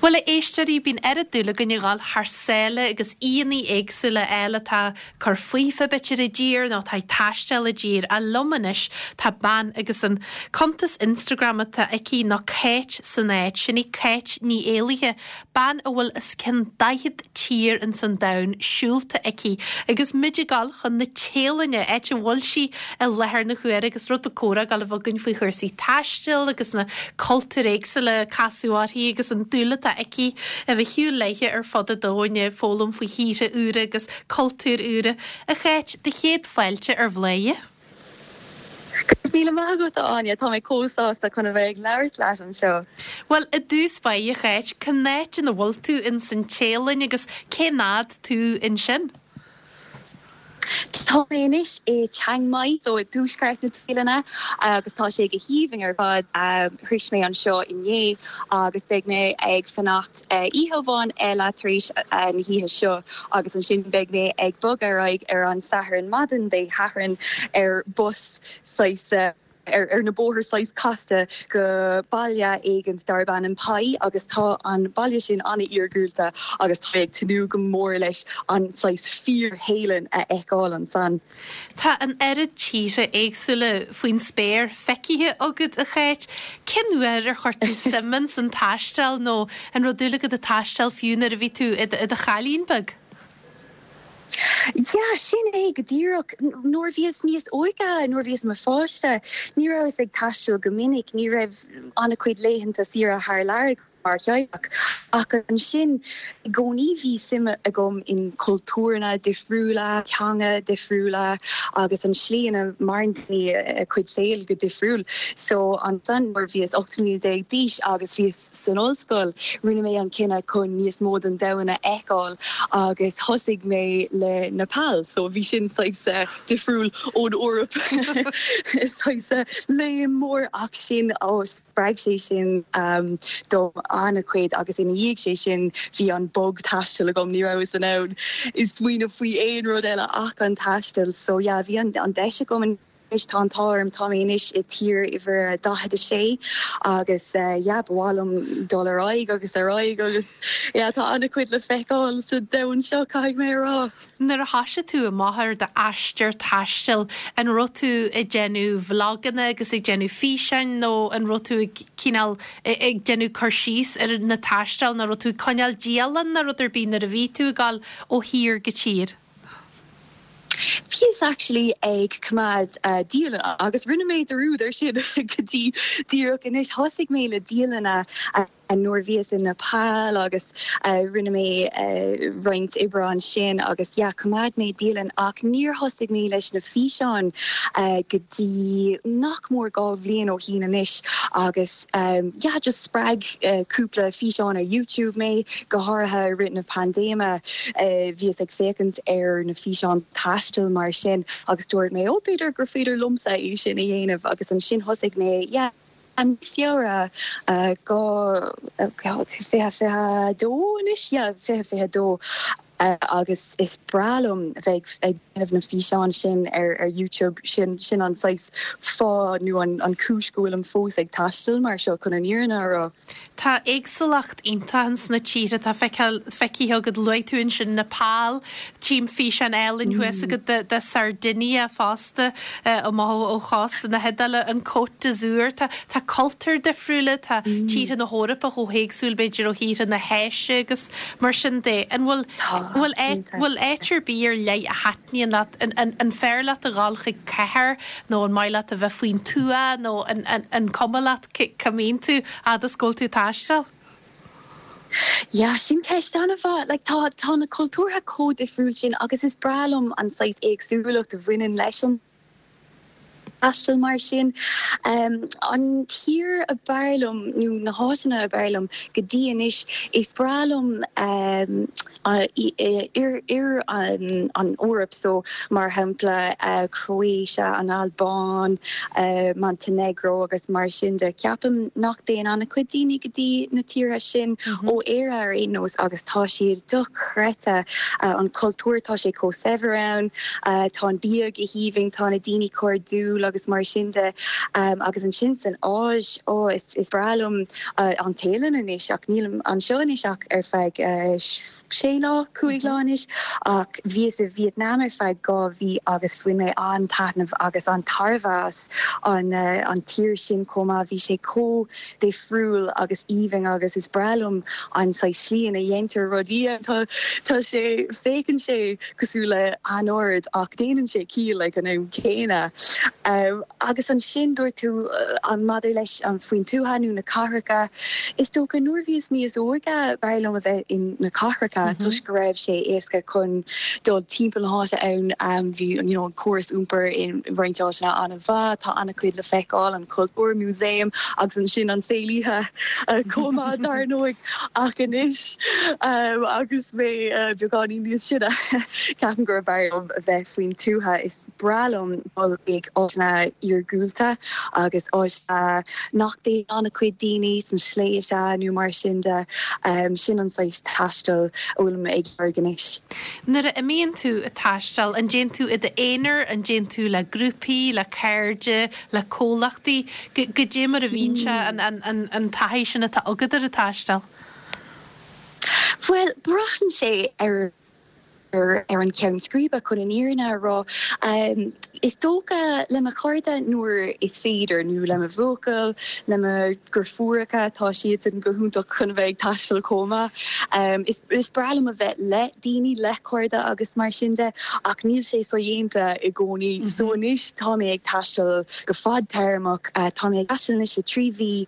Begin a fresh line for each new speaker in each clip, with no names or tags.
Bhuel, a éisteoirí, bíonn oiread dúil againn a dhul thar sáile agus aíonna éagsúla a fháil atá ag cur faofa b'fhéidir i dtír nó atá ag taisteal i dtír. Ach liom anois tá bean agus an cuntas Instagram atá aici ná Cáit san Áit. Sin í Cáit Ní Éalaithe, bean a bhfuil os cionn 40 tír ins an domhan siúlta aici agus muid ag dul chun na Téalainne, áit a bhfuil sí i láthair na huaire agus rud beag comhrá ag dul a bheith againn faoi chúrsaí taistil agus na cultúir éagsúla a casadh uirthi agus an dúil atá aici a bheith ag siúl léithe ar fud an domhain ag foghlaim faoi thíortha úra agus cultúir úra. A Cháit, do chéad fáilte ar Bhladhaire.
Go raibh míle maith agat, a Áine. Tá mé chomh sásta chun a bheith ag labhairt leat anseo.
Bhuel, i dtús báire, a Cháit, cén áit ina bhfuil tú ins an Téalainn agus cén fhad tú ansin?
Tá mé anois i Chiang Mai, so i dtuaisceart na Téalainne, agus tá sé go haoibhinn ar fad. Shroich mé anseo inné agus beidh mé ag fanacht Oíche amháin eile tar éis na hoíche seo agus ansin beidh mé ag bogadh ar aghaidh ar an Satharn maidin Dé Sathairn ar bus saghas ar na bóithre saghas casta go baile éigint darb ainm Pai agus tá an baile sin an-iargúlta agus tá mé ag tnúth go mór leis an saghas fíor-Théalainn a fheiceáil ansan.
Tá an oiread tíortha éagsúla faoin spéir feicthe agat, a Cháit. Cén uair ar chuir tú suim ins an taisteal nó an raibh dúil agat ag taisteal fiú nuair a bhí tú i do chailín beag?
Yeah, sin é go díreach. Nuair a bhíos níos óige, nuair a bhíos i mo pháiste, ní rabhas ag taisteal go minic, ní raibh an-chuid laethanta saoire thar lear agam. mar theaghlach. Ach ansin, i gcónaí bhí suim agam in cultúranna difriúla, teanga difriúla agus an slí ina maireann daoine a cuid saoil go difriúil. So ansan nuair a bhíos 18 mbliana d'aois agus bhíos san ollscoil, rinne mé an cinneadh chun níos mó den domhan a fheiceáil agus thosaigh mé le Nepal. So bhí sin saghas difriúil ón Eoraip, saghas léim mór ach sin, ó, spreag sé sin dom an-chuid agus ina dhiaidh sé sin bhí an bug taistil agam, ní rabhas in ann smaoineamh faoi aon rud eile ach an taisteal. So yeah, bhí an deis agam anois, tá an t-ádh orm, tá mé anois i tír uimhir a 46 agus yeah, ba mhaith liom dul ar aghaidh agus ar aghaidh agus yeah, tá an-chuid le feiceáil sa domhan seo, caithfidh mé a rá.
Nuair a thoisigh tú amach ar d'aistear taistil, an raibh tú ag déanamh vloganna agus ag déanamh físeáin nó an raibh tú ag cineál ag déanamh cur síos ar na taisteal nó raibh tú ag coinneáil dialann nó rud ar bith nuair a bhí tú ag dul ó thír go tír?
Bhíos actually ag coimeád dialann agus rinne mé dearúd ar sin go dtí díreach anois. Thosaigh mé le dialanna Nuair a bhíos i Nepal agus rinne mé roinnt oibre ansin agus yeah choimeád mé dialann ach níor thosaigh mé leis na físeáin go dtí nach mór 2 bhliain ó shín anois agus yeah just spreag cúpla físeán ar YouTube mé, go háirithe i rith na paindéime bhíos ag féachaint ar na físeáin taistil mar sin agus dúirt mé oh b'fhéidir gur féidir liomsa é sin a dhéanamh agus ansin thosaigh mé yeah I mí Feabhra 2022 anois, yeah, 2022, agus is breá liom bheith ag déanamh na físeáin sin ar YouTube, sin sin an saghas fáth nó an cúis go bhfuilim fós ag taisteal mar seo chun an fhírinne a rá.
Tá éagsúlacht iontach ins na tíortha atá feicthe agat. Luaigh tú ansin Nepal, tchím físeán álainn thuas agat de de Sardinia fosta, amach ó chósta na hIodáile, an Côte d'Azur. Tá tá cultúir difriúla, tá tíortha na hEorpa chomh héagsúil b'fhéidir ó thíortha na hÁise agus mar sin de. An bhfuil bhfuil bhfuil áit ar bith ar leith a thaitníonn leat? An an an fearr leat a dhul chuig cathair nó an maith leat a bheith faoin tuath nó an an an cuma leat? Cá mbíonn tú fhad is go bhfuil tú ag taisteal?
Yeah, sin ceist an-mhaith. Like, tá, tá na cultúrtha chomh difriúil sin agus is breá liom an saghas éagsúlacht a bhaineann leis an taisteal mar sin. An tír a b'fhearr liom, nó na háiteanna a b'fhearr liom go dtí anois, is breá liom Oirthear an Eoraip so mar shampla Croatia, an Albáin, Montenegro agus mar sin de. Ceapaim nach dtéann an-chuid daoine go dtí na tíortha sin ó Éire ar aon nós agus tá siad dochreidte. An cultúr, tá sé chomh saibhir ann, tá an bia go haoibhinn, tá na daoine cairdiúil. agus mar sin de. Agus ansin san Áis, ó, is breá liom an Téalainn anois ach nílim anseo anois ach ar feadh sé lá, 5 lá anois ach bhíos i Vietnam ar feadh 2 mhí agus bhain mé an-taitneamh agus an-tairbhe as an an tír sin chomh maith. Bhí sé chomh difriúil agus aoibhinn agus is breá liom an saghas slí ina dhéantar rudaí. Tá tá sé, féachann sé cosúil le anord ach déanann sé ciall ag an am céanna. Agus ansin dúirt tú an maidir leis an faoin tuath nó na cathracha, is dócha nuair a bhíos níos óige b'fhearr liom a bheith in na cathracha toisc go raibh sé éasca chun dul timpeall na háite ann, bhí you know an córas iompair in roinnt áiteanna an-mhaith, tá an-chuid le feiceáil, an cultúr, músaem agus ansin an saol oíche chomh maith dar ndóigh. Ach anois agus mé beagáinín níos sine ceapaim gurb fhearr liom a bheith faoin tuath. Is breá liom dul chuig áiteanna iargúlta agus áiteanna nach dtéann an-chuid daoine, sna sléibhte nó mar sin de. Sin an saghas taistil a bhfuilim ag lorg anois.
Nuair a imíonn tú ag taisteal, an dtéann tú i d'aonar, an dtéann tú le grúpaí, le cairde, le comhlachtaí? Goidé mar a bhíonn sé, an taithí sin atá agat ar an taisteal?
Bhuel, braitheann sé ar ar an cheann scríbe, chun an fhírinne a rá. Is dócha le mo chairde nuair is féidir, nó le mo bhuachaill, le mo dheirfiúracha, tá siadsan go hiontach chun a bheith ag taisteal chomh maith. Is breá liom a bheith le daoine, le cairde agus mar sin de, ach níl sé sodhéanta i gcónaí. So anois tá mé ag taisteal go fadtéarmach. Tá mé ag taisteal anois le 3 mhí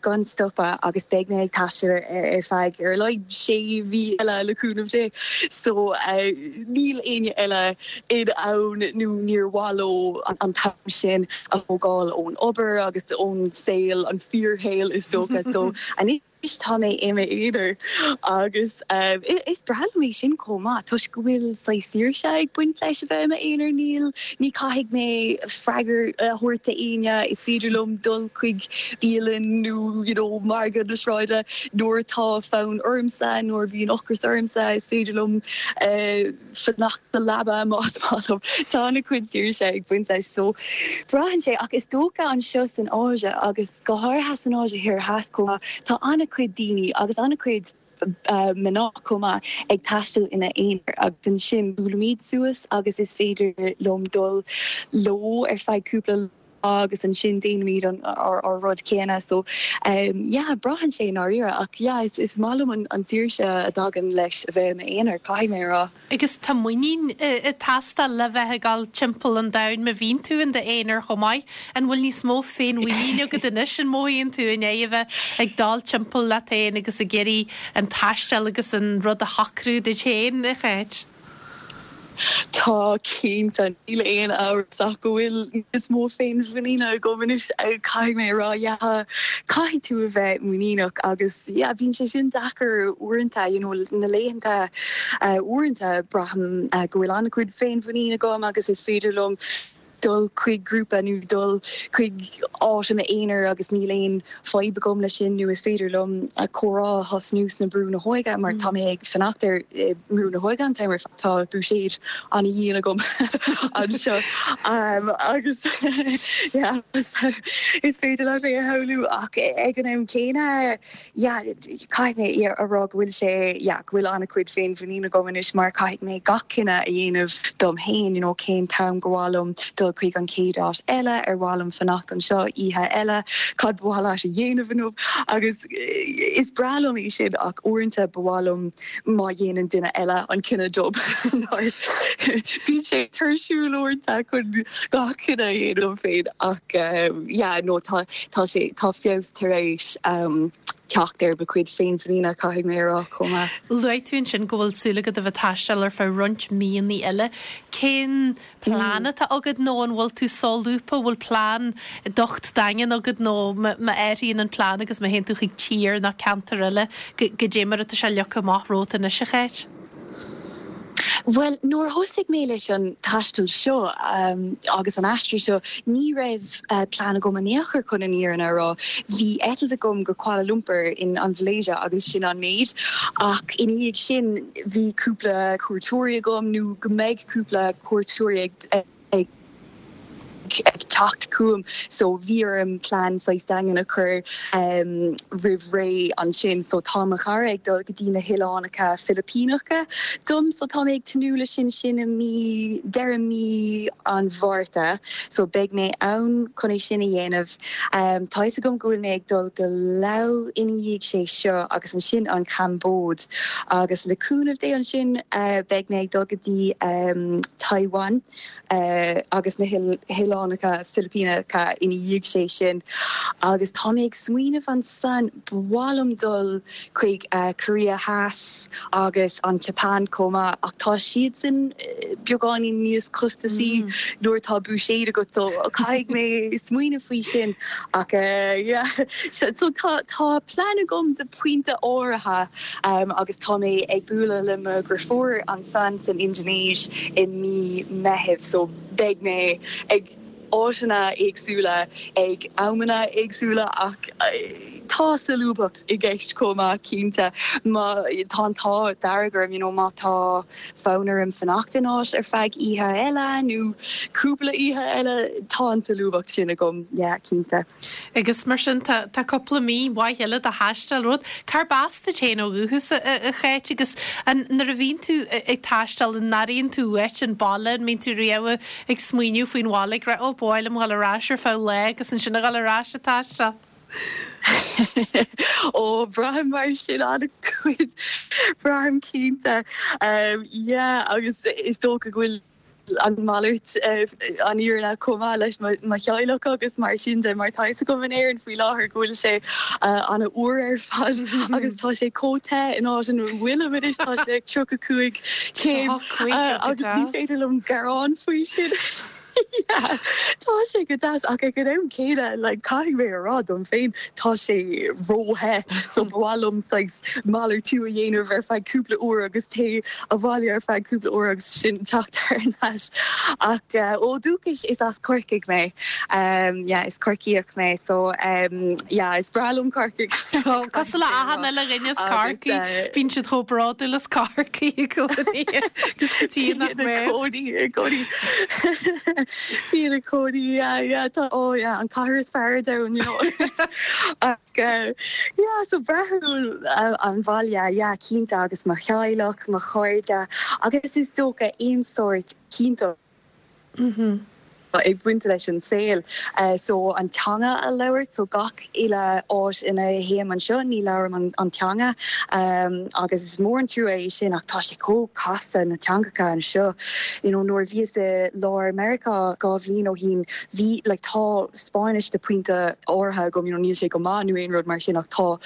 gan stopadh agus beidh mé ag taisteal ar feadh ar a laghad sé mhí eile le cúnamh Dé. So níl éinne eile in ann nó níor mhaith leo an t-am sin a thógáil ón obair agus ón saol, an fíorshaol is dócha. So anois tá mé i m'aonar agus is breá liom é sin chomh maith toisc go bhfuil saghas saoirse ag baint leis a bheith i m'aonar. Níl, ní caithfidh mé freagra a thabhairt d'éinne, is féidir liom dul chuig bialann nó you know margadh na sráide nuair atá fonn ormsa, nuair a bhíonn ocras ormsa, is féidir liom fanacht sa leaba más maith liom. Tá an-chuid saoirse ag baint leis so braitheann sé ach is dócha anseo san Áise agus go háirithe san Áise Thoir Theas chomh maith tá an-chuid daoine agus an-chuid mná chomh maith ag taisteal ina n-aonar agus ansin buailimid suas agus is féidir liom dul leo ar feadh cúpla lá agus ansin déanaimid an ár rud céanna so yeah braitheann sé i ndáiríre ach yeah is is maith liom an an saoirse a dtagann leis a bheith i m'aonar caithfidh mé a rá.
Agus tá muinín ag teastáil le bheith ag dul timpeall an domhain má bhíonn tú in d'aonar chomh maith. An bhfuil níos mó féinmhuiníne agat anois an mothaíonn tú i ndiaidh a bheith ag dul timpeall leat féin agus ag iarraidh an taisteal agus an rud a shocrú duit féin, a Cháit?
Tá, cinnte. Níl aon amhras ach go bhfuil níos mó féinmhuiníne agam anois, caithfidh mé a rá. Yeah, caithfidh tú a bheith muiníneach agus yeah, bíonn sé sin deacair uaireanta, you know, na laethanta uaireanta braithim go bhfuil an-chuid féinmhuinín agam agus is féidir liom dul chuig grúpa nó dul chuig áit i m'aonar agus níl aon fadhb agam leis sin nó is féidir liom comhrá a thosnú sna Brú na hÓige mar tá mé ag fanacht ar Brú na hÓige an t-am ar fad, tá buiséad an-dhian agam anseo agus yeah is féidir leat é a shamhlú ach ag an am céanna yeah caithfidh mé a rá go bhfuil sé, yeah, go bhfuil an-chuid féinmhuinín agam anois mar caithfidh mé gach cinneadh a dhéanamh dom féin, you know, cén t-am gur mhaith liom dul chuig an chéad áit eile, ar mhaith liom fanacht anseo oíche eile, cad ba mhaith leat a dhéanamh inniu agus is breá liom é sin ach uaireanta ba mhaith liom má dhéanann duine eile an cinneadh dom mar bíonn sé tuirsiúil uaireanta chun gach cinneadh a dhéanamh dom féin ach yeah, no, tá, tá sé, tá feabhas tar éis teacht ar mo chuid féinmhuiníne, caithfidh mé a rá, chomh maith.
Luaigh tú ansin go bhfuil súil agat a bheith ag taisteal ar feadh roinnt míonna eile. Cén plean atá agat nó an bhfuil tú solúbtha, bhfuil plean docht daingean agat nó má athraíonn an plean agus má théann tú chuig tír nó ceantar eile, goidé mar atá sé leagtha amach romhat anois, a Cháit?
Bhuel, nuair a thosaigh mé leis an taisteal seo agus an aistear seo, ní raibh plean agam in aon chor chun an fhírinne a rá. Bhí eitilt agam go Kuala Lumpur in an Mhalaeisia agus sin an méid. Ach ina dhiaidh sin, bhí cúpla cuairteoirí agam, nó go mbeidh cúpla cuairteoirí ag teacht. teacht chugam so bhí orm plean saghas daingean a chur roimh ré ansin so tá mo chara ag dul go dtí na hOileánacha Filipíneacha dom so tá mé ag tnúth le sin sin i mí deireadh mí an Mhárta so beidh mé ann chun é sin a dhéanamh. Tá fhios agam go bhfuil mé ag dul go Laos ina dhiaidh sé seo agus ansin an Chambóid agus le cúnamh Dé ansin beidh mé ag dul go dtí Taiwan agus na hOileánacha Filipíneacha ina dhiaidh sé sin agus tá mé ag smaoineamh ansan ba mhaith liom dul chuig Korea Theas agus an tSeapáin chomh maith ach tá siadsan beagáinín níos costasaí nuair atá buiséad agat so caithfidh mé smaoineamh faoi sin ach yeah so tá tá plean agam do pointe áirithe agus tá mé ag bualadh le mo dheirfiúr ansan san Indinéis i mí Meithimh so beidh mé ag áiteanna éagsúla ag amanna éagsúla ach tá solúbthacht i gceist chomh maith cinnte. Má tá an t-ádh dearg orm you know má tá fonn orm fanacht in áit ar feadh oíche eile nó cúpla oíche eile tá an tsolúbthacht sin agam yeah cinnte.
Agus mar sin tá tá cúpla mí mhaith eile de thaisteal romhat. Cárb as duit féin ó dhúchas, a Cháit, agus an nuair a bhíonn tú ag taisteal an airíonn tú uait an baile, an mbíonn tú riamh ag smaoineamh faoin bhaile ag rá 'Ó, ba mhaith liom dhul ar ais ar feadh lá agus ansin a dhul ar ais ag taisteal'?
Ó, braithim mar sin an-chuid, braithim cinnte. Yeah, agus is dócha go bhfuil an mhalairt an fhírinne chomh maith leis mo theaghlach agus mar sin de mar tá fhios agam in Éirinn faoi láthair go bhfuil sé an-fhuar ar fad agus tá sé chomh te in áit ina bhfuilim anois, tá sé ag 35 céim agus ní féidir liom gearán faoi sin. Yeah, tá sé go deas ach ag an am céanna like caithfidh mé a rá dom féin tá sé ró-the so ba mhaith liom saghas malartú a dhéanamh ar feadh cúpla uair agus téigh abhaile ar feadh cúpla uair agus sin teacht thar n-ais. Ach ó dhúchas is as Corcaigh mé. Yeah, is Corcaíoch mé so yeah, is breá liom Corcaigh.
Cosúil le achan uile dhuine as Corcaigh, bíonn siad chomh bródúil as Corcaigh i gcónaí agus go dtí nach mbeadh.
Cónaí i gcónaí. Tí ina cónaí, yeah, yeah, tá, oh yeah, an cathair is fearr ar domhan, you know. Yeah, so braithim an bhaile, yeah, cinnte, agus mo theaghlach, mo chairde, agus is dócha aon sórt cinnteacht ag baint leis an saol. So an teanga a labhairt, so gach uile áit ina théim anseo ní labhraim an teanga agus is mór an trua é sin ach tá sé chomh casta na teangacha anseo. You know, nuair a bhíos i lár Meiriceá 2 bhliain ó shin bhí, like, tá Spáinnis de pointe áirithe agam, you know, níl sé go maith nó aon rud mar sin ach tá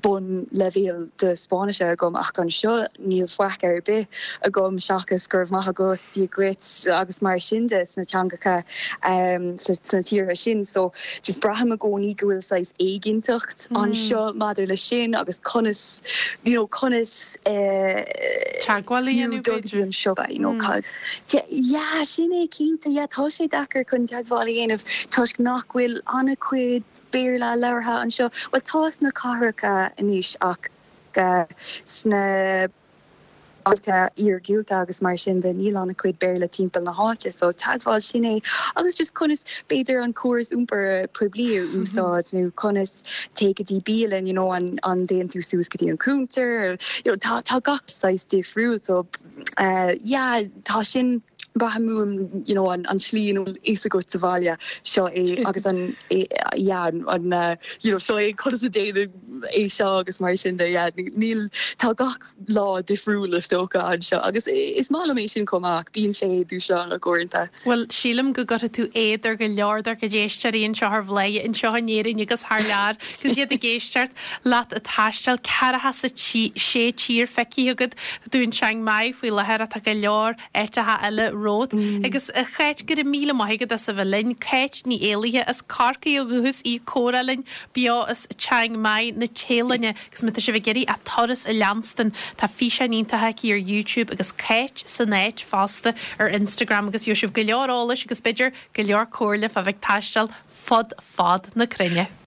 bun leibhéal de Spáinnise agam ach anseo níl faic ar bith agam seachas go raibh maith agat, Dia dhuit agus mar sin de sna teangacha sna tíortha sin. So just braithim i gcónaí go bhfuil saghas éiginnteacht anseo maidir le sin agus conas, you know, conas
eh Teagmháil a dhéanamh
dul go dtí
b'fhéidir?
an siopa, you know, cad. Yeah, sin é cinnte, yeah, tá sé deacair chun teagmháil a dhéanamh toisc nach bhfuil an-chuid Béarla labhartha anseo. Bhuel, tá sna cathracha anois ach sna bailte iargúlta agus mar sin de níl an-chuid Béarla timpeall na háite so teagmháil, sin é. Agus just conas b'fhéidir an córas iompair poiblí a úsáid nó conas téigh go dtí bialann, you know, an an dtéann tú suas go dtí an cuntar, you know, tá tá gach saghas difriúil so yeah tá sin braithim uaim you know an an tslí ina bhfuil fhios agat sa bhaile seo é agus an yeah an you know seo é conas a déanann é seo agus mar sin de yeah níl tá gach lá difriúil is dócha anseo agus is maith liom é sin chomh maith ach bíonn sé dúshlánach uaireanta.
Bhuel, sílim go gcuirfidh tú éad ar go leor dár gcuid éisteoirí anseo ar Bhladhaire, anseo in Éirinn agus thar lear, agus iad ag éisteacht leat ag taisteal, 46 tír feicthe agat, tá tú in Chiang Mai faoi láthair ach tá go leor áiteacha eile romhat. Agus a Cháit, go raibh míle maith agat as a bheith linn. Cáit Ní Éalaithe as Corcaigh ó dhúchas í ag comhrá linn beo as Chiang Mai na Téalainne. Agus má tá sibh ag iarraidh a turas a leanstan, tá físeáin iontacha aici ar YouTube agus Cáit san áit fosta ar Instagram agus gheobhaidh sibh go leor eolais agus b'fhéidir go leor comhairle fá bheith ag taisteal fud fad na cruinne.